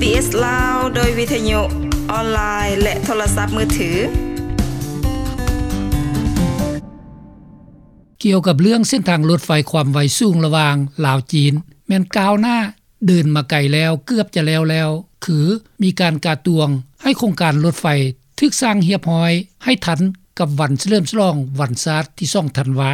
ເອສ ລາວ ໂດຍວິທະຍຸອອນລາຍ ແລະ ໂທລະສັບມືຖື. ກ່ຽວກັບເລື່ອງເສັ້ນທາງລົດໄຟຄວາມໄວສູງລະຫວ່າງລາວ-ຈີນ ແມ່ນກ້າວໜ້າເດີນມາໄກແລ້ວ, ເກືອບຈະແລ້ວແລ້ວ, ຄືມີການກະຕວງໃຫ້ໂຄງການລົດໄຟຖືກສ້າງຮຽບຮ້ອຍ ໃຫ້ທັນກັບວັນສະເຫຼີມສະຫຼອງວັນຊາດທີສອງທັນວາ.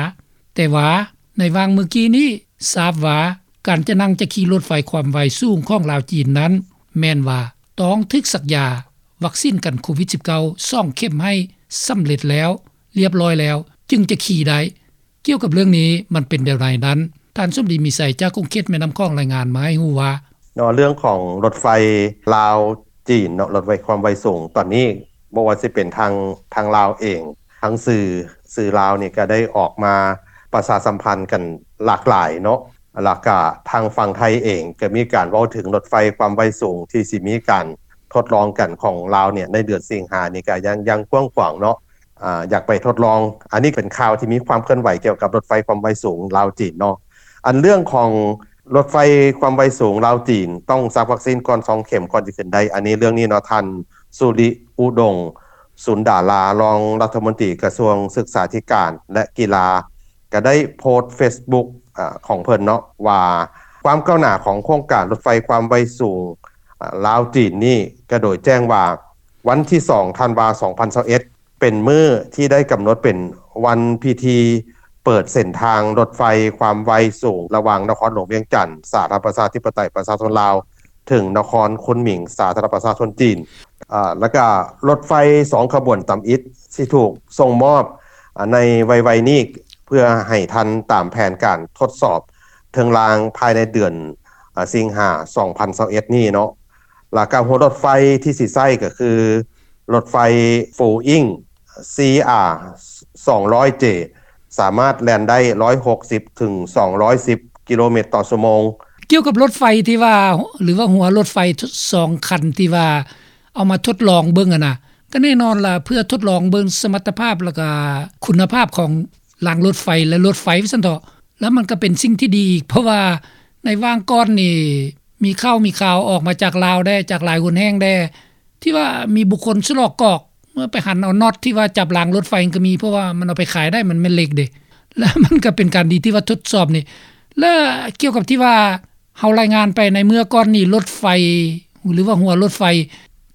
ແຕ່ວ່າໃນຫວ່າງມື້ກີ້ນີ້ ຊາບວ່າການຈະນັ່ງຈະຂີ່ລົດໄຟຄວາມໄວສູງຂອງລາວ-ຈີນນັ້ນ ແມ່ນວ່າຕ້ອງຖືກສັກຢາວັກຊີນກັນໂຄວິດສິບເກົ້າ ສອງເຂັມໃຫ້ສຳເລັດແລ້ວ ລຽບຮ້ອຍແລ້ວ ຈຶ່ງຈະຂີ່ໄດ້. ກ່ຽວກັບເລື່ອງນີ້ມັນເປັນແນວໃດນັ້ນ, ທ່ານສົມດີ ມີໄຊ ຈາກຂົງເຂດແມ່ນ້ຳຂອງ ລາຍງານມາໃຫ້ຮູ້ວ່າ ເນາະ ເລື່ອງຂອງລົດໄຟລາວ-ຈີນເນາະ ລົດໄຟຄວາມໄວສູງ ຕອນນີ້ບໍ່ວ່າຊິເປັນທາງ ທາງລາວເອງ ທາງສື່ ສື່ລາວນີ້ກໍໄດ້ອອກມາປະຊາສຳພັນກັນຫຼາກຫຼາຍເນາະ ແລ້ວກະທາງຝັ່ງໄທເອງກໍມີການເວົ້າເຖິງລົດໄຟຄວາມໄວສູງທີ່ຊິມີການທົດລອງກັນຂອງລາວເນຍ ໃນເດືອນສິງຫານີ້ກໍຍັງ ຍັງກວ້າງຂວາງເນາະ ອາ ຢາກໄປທົດລອງ. ອັນນີ້ເປັນຂ່າວທີ່ມີຄວາມເຄື່ອນໄຫວກ່ຽວກັບລົດໄຟຄວາມໄວສູງລາວ-ຈີນເນາະ. ອັນເລື່ອງຂອງລົດໄຟຄວາມໄວສູງລາວ-ຈີນ ຕ້ອງສັກວັກຊີນກ່ອນສອງເຂັມກ່ອນຈະຂຶ້ນໄດ້. ອັນນີ້ເລື່ອງນີ້ເນາະ ທ່ານ ສຸລິ ອຸດົງ ສຸນດາລາ ຮອງລັດຖະມົນຕີກະຊວງສຶກສາທິການ ແລະ ກິລາ ກໍໄດ້ໂພສເຟສບຸກ ອາ ຂອງເພິ່ນເນາະ ວ່າຄວາມກ້າວໜ້າຂອງໂຄງການລົດໄຟຄວາມໄວສູງ ອາ ລາວ-ຈີນນີ້ ກໍໂດຍແຈ້ງວ່າ ວັນທີສອງທັນວາ ສອງພັນຊາວເອັດ ເປັນມື້ທີ່ໄດ້ກຳນົດເປັນວັນພິທີເປີດເສັ້ນທາງລົດໄຟຄວາມໄວສູງ ລະຫວ່າງນະຄອນຫຼວງວຽງຈັນ ສາທາລະນະລັດປະຊາທິປະໄຕປະຊາຊົນລາວ ເຖິງນະຄອນຄຸນໝິງ ສາທາລະນະລັດປະຊາຊົນຈີນ. ອາ ແລ້ວກະລົດໄຟສອງຂະບວນຕຳອິດຊິຖືກສົ່ງມອບ ອາ ໃນໄວໆນີ້ ເພື່ອໃຫ້ທັນຕາມແຜນການທົດສອບເທິງລາງພາຍໃນເດືອນ ອາ ສິງຫາ ສອງພັນຊາວເອັດນີ້ເນາະ. ແລ້ວກະຫົວລົດໄຟທີ່ຊິໃຊ້ກໍຄືລົດໄຟ Four Wing ຊີອາ ສອງຮ້ອຍເຈ ສາມາດແລ່ນໄດ້ຮ້ອຍຫົກສິບເຖິງສອງຮ້ອຍສິບກິໂລແມັດຕໍ່ຊົ່ວໂມງ. ກ່ຽວກັບລົດໄຟທີ່ວ່າ ຫຼືວ່າຫົວລົດໄຟສອງຄັນທີ່ວ່າເອົາມາທົດລອງເບິ່ງຫັ້ນນະ ກໍແນ່ນອນລະ ເພື່ອທົດລອງເບິ່ງສະມັດຕະພາບ ແລ້ວກະຄຸນນະພາບຂອງລາງລົດໄຟ ແລະ ລົດໄຟວ່າຊັ້ນເຖາະ ແລ້ວມັນກໍເປັນສິ່ງທີ່ດີອີກ ເພາະວ່າໃນຫວ່າງກ່ອນນີ້ ມີຂ່າວມີຂ່າວອອກມາຈາກລາວແດ່ ຈາກຫຼາຍຫົນແຫ່ງແດ່ ທີ່ວ່າມີບຸກຄົນສະຫຼອກກອກ ເມື່ອໄປຫັນເອົານັອດທີ່ວ່າຈັບລາງລົດໄຟກໍມີ ເພາະວ່າມັນເອົາໄປຂາຍໄດ້ ມັນແມ່ນເຫຼັກເດ້ ແລ້ວມັນກໍເປັນການດີທີ່ວ່າທົດສອບນີ້. ແລະ ກ່ຽວກັບທີ່ວ່າເຮົາລາຍງານໄປໃນເມື່ອກ່ອນນີ້ ລົດໄຟ ຫຼືວ່າຫົວລົດໄຟ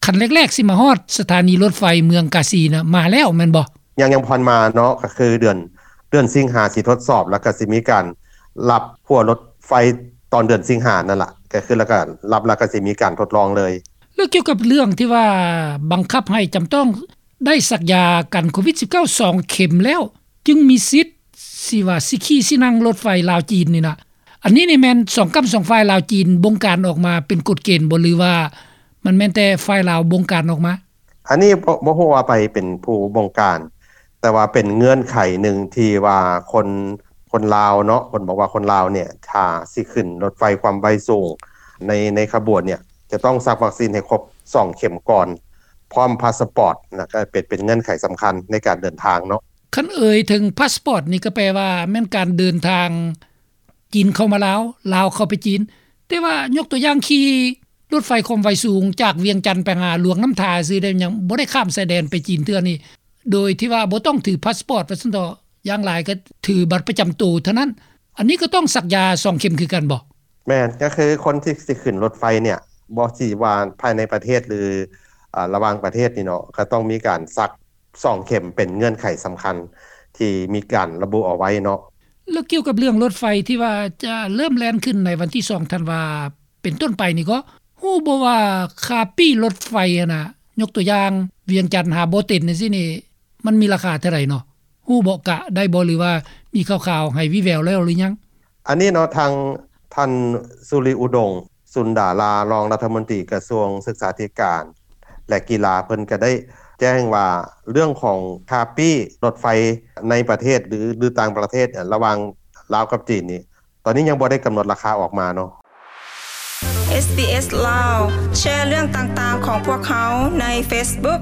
ຄັນແລກໆຊິມາຮອດສະຖານີລົດໄຟເມືອງກາສີນະ ມາແລ້ວແມ່ນບໍ່? ຍັງ ຍັງບໍ່ທັນມາເນາະ ກໍຄືເດືອນ ເດືອນສິງຫາຊິທົດສອບ ແລ້ວກໍຊິມີການຮັບຫົວລົດໄຟຕອນເດືອນສິງຫານັ້ນລະ ກໍຄືແລ້ວກໍຮັບ ແລ້ວກໍຊິມີການທົດລອງເລີຍ. ແລ້ວກ່ຽວກັບເລື່ອງທີ່ວ່າບັງຄັບໃຫ້ຈຳຕ້ອງໄດ້ສັກຢາກັນໂຄວິດສິບເກົ້າສອງເຂັມແລ້ວ ຈຶ່ງມີສິດຊິວ່າຊິຂີ່ຊິນັ່ງລົດໄຟລາວ-ຈີນນີ້ນະ ອັນນີ້ນີ້ແມ່ນສອງກ້ຳສອງຝ່າຍລາວ-ຈີນບົງການອອກມາເປັນກົດເກນບໍ່ ຫຼືວ່າມັນແມ່ນແຕ່ຝ່າຍລາວບົງການອອກມາ? ອັນນີ້ບໍ່ ບໍ່ຮູ້ວ່າໃຜເປັນຜູ້ບົງການ ແຕ່ວ່າເປັນເງື່ອນໄຂໜຶ່ງທີ່ວ່າຄົນ ຄົນລາວເນາະ ເພິ່ນບອກວ່າຄົນລາວເນຍ ຖ້າຊິຂຶ້ນລົດໄຟຄວາມໄວສູງໃນ ໃນຂະບວນເນຍ ຈະຕ້ອງສັກວັກຊີນໃຫ້ຄົບສອງເຂັມກ່ອນ ພ້ອມພາສປອດ ແລ້ວກໍເປັນ ເປັນເງື່ອນໄຂສຳຄັນໃນການເດີນທາງເນາະ. ຄັນເອີ່ຍເຖິງພາສປອດນີ້ ກໍແປວ່າແມ່ນການເດີນທາງ ຈີນເຂົ້າມາລາວ ລາວເຂົ້າໄປຈີນ ແຕ່ວ່າຍົກຕົວຢ່າງຂີ່ລົດໄຟຄວາມໄວສູງຈາກວຽງຈັນໄປຫາຫຼວງນ້ຳທາຊື່ເດ້ ຍັງບໍ່ໄດ້ຂ້າມຊາຍແດນໄປຈີນເທື່ອນີ້ ໂດຍທີ່ວ່າບໍ່ຕ້ອງຖືພາສປອດວ່າຊັ້ນເຖາະ ຢ່າງຫຼາຍກໍຖືບັດປະຈຳໂຕເທົ່ານັ້ນ ອັນນີ້ກໍຕ້ອງສັກຢາສອງເຂັມຄືກັນບໍ່? ແມ່ນ ກໍຄືຄົນທີ່ຊິຂຶ້ນລົດໄຟເນຍ ບໍ່ຊິວ່າພາຍໃນປະເທດ ຫຼື ອາ ລະຫວ່າງປະເທດນີ້ເນາະ ກໍຕ້ອງມີການສັກ ສອງເຂັມເປັນເງື່ອນໄຂສຳຄັນທີ່ມີການລະບຸເອົາໄວ້ເນາະ. ແລ້ວກ່ຽວກັບເລື່ອງລົດໄຟທີ່ວ່າຈະເລີ່ມແລ່ນຂຶ້ນໃນວັນທີສອງທັນວາເປັນຕົ້ນໄປນີ້ ກໍຮູ້ບໍ່ວ່າຄ່າປີ້ລົດໄຟຫັ້ນນະ ຍົກຕົວຢ່າງ ວຽງຈັນຫາບໍ່ເຕັນຈັ່ງຊີ້ນີ້ ມັນມີລາຄາເທົ່າໃດເນາະ? ຮູ້ບໍ່ ກະໄດ້ບໍ່ ຫຼືວ່າມີຂ່າວໆໃຫ້ວີ່ແວວແລ້ວຫຼືຍັງ? ອັນນີ້ເນາະ ທາງທ່ານ ສຸລິ ອຸດົງ ສຸນດາລາ ຮອງລັດຖະມົນຕີກະຊວງສຶກສາທິການ ແລະ ກິລາ ເພິ່ນກໍໄດ້ແຈ້ງວ່າ ເລື່ອງຂອງຄ່າປີ້ລົດໄຟໃນປະເທດ ຫຼື ຫຼື ຕ່າງປະເທດ ລະຫວ່າງລາວກັບຈີນນີ້ ຕອນນີ້ຍັງບໍ່ໄດ້ກຳນົດລາຄາອອກມາເນາະ. ເອສບີເອສ ລາວ ແຊເລື່ອງຕ່າງໆຂອງພວກເຮົາໃນເຟສບຸກ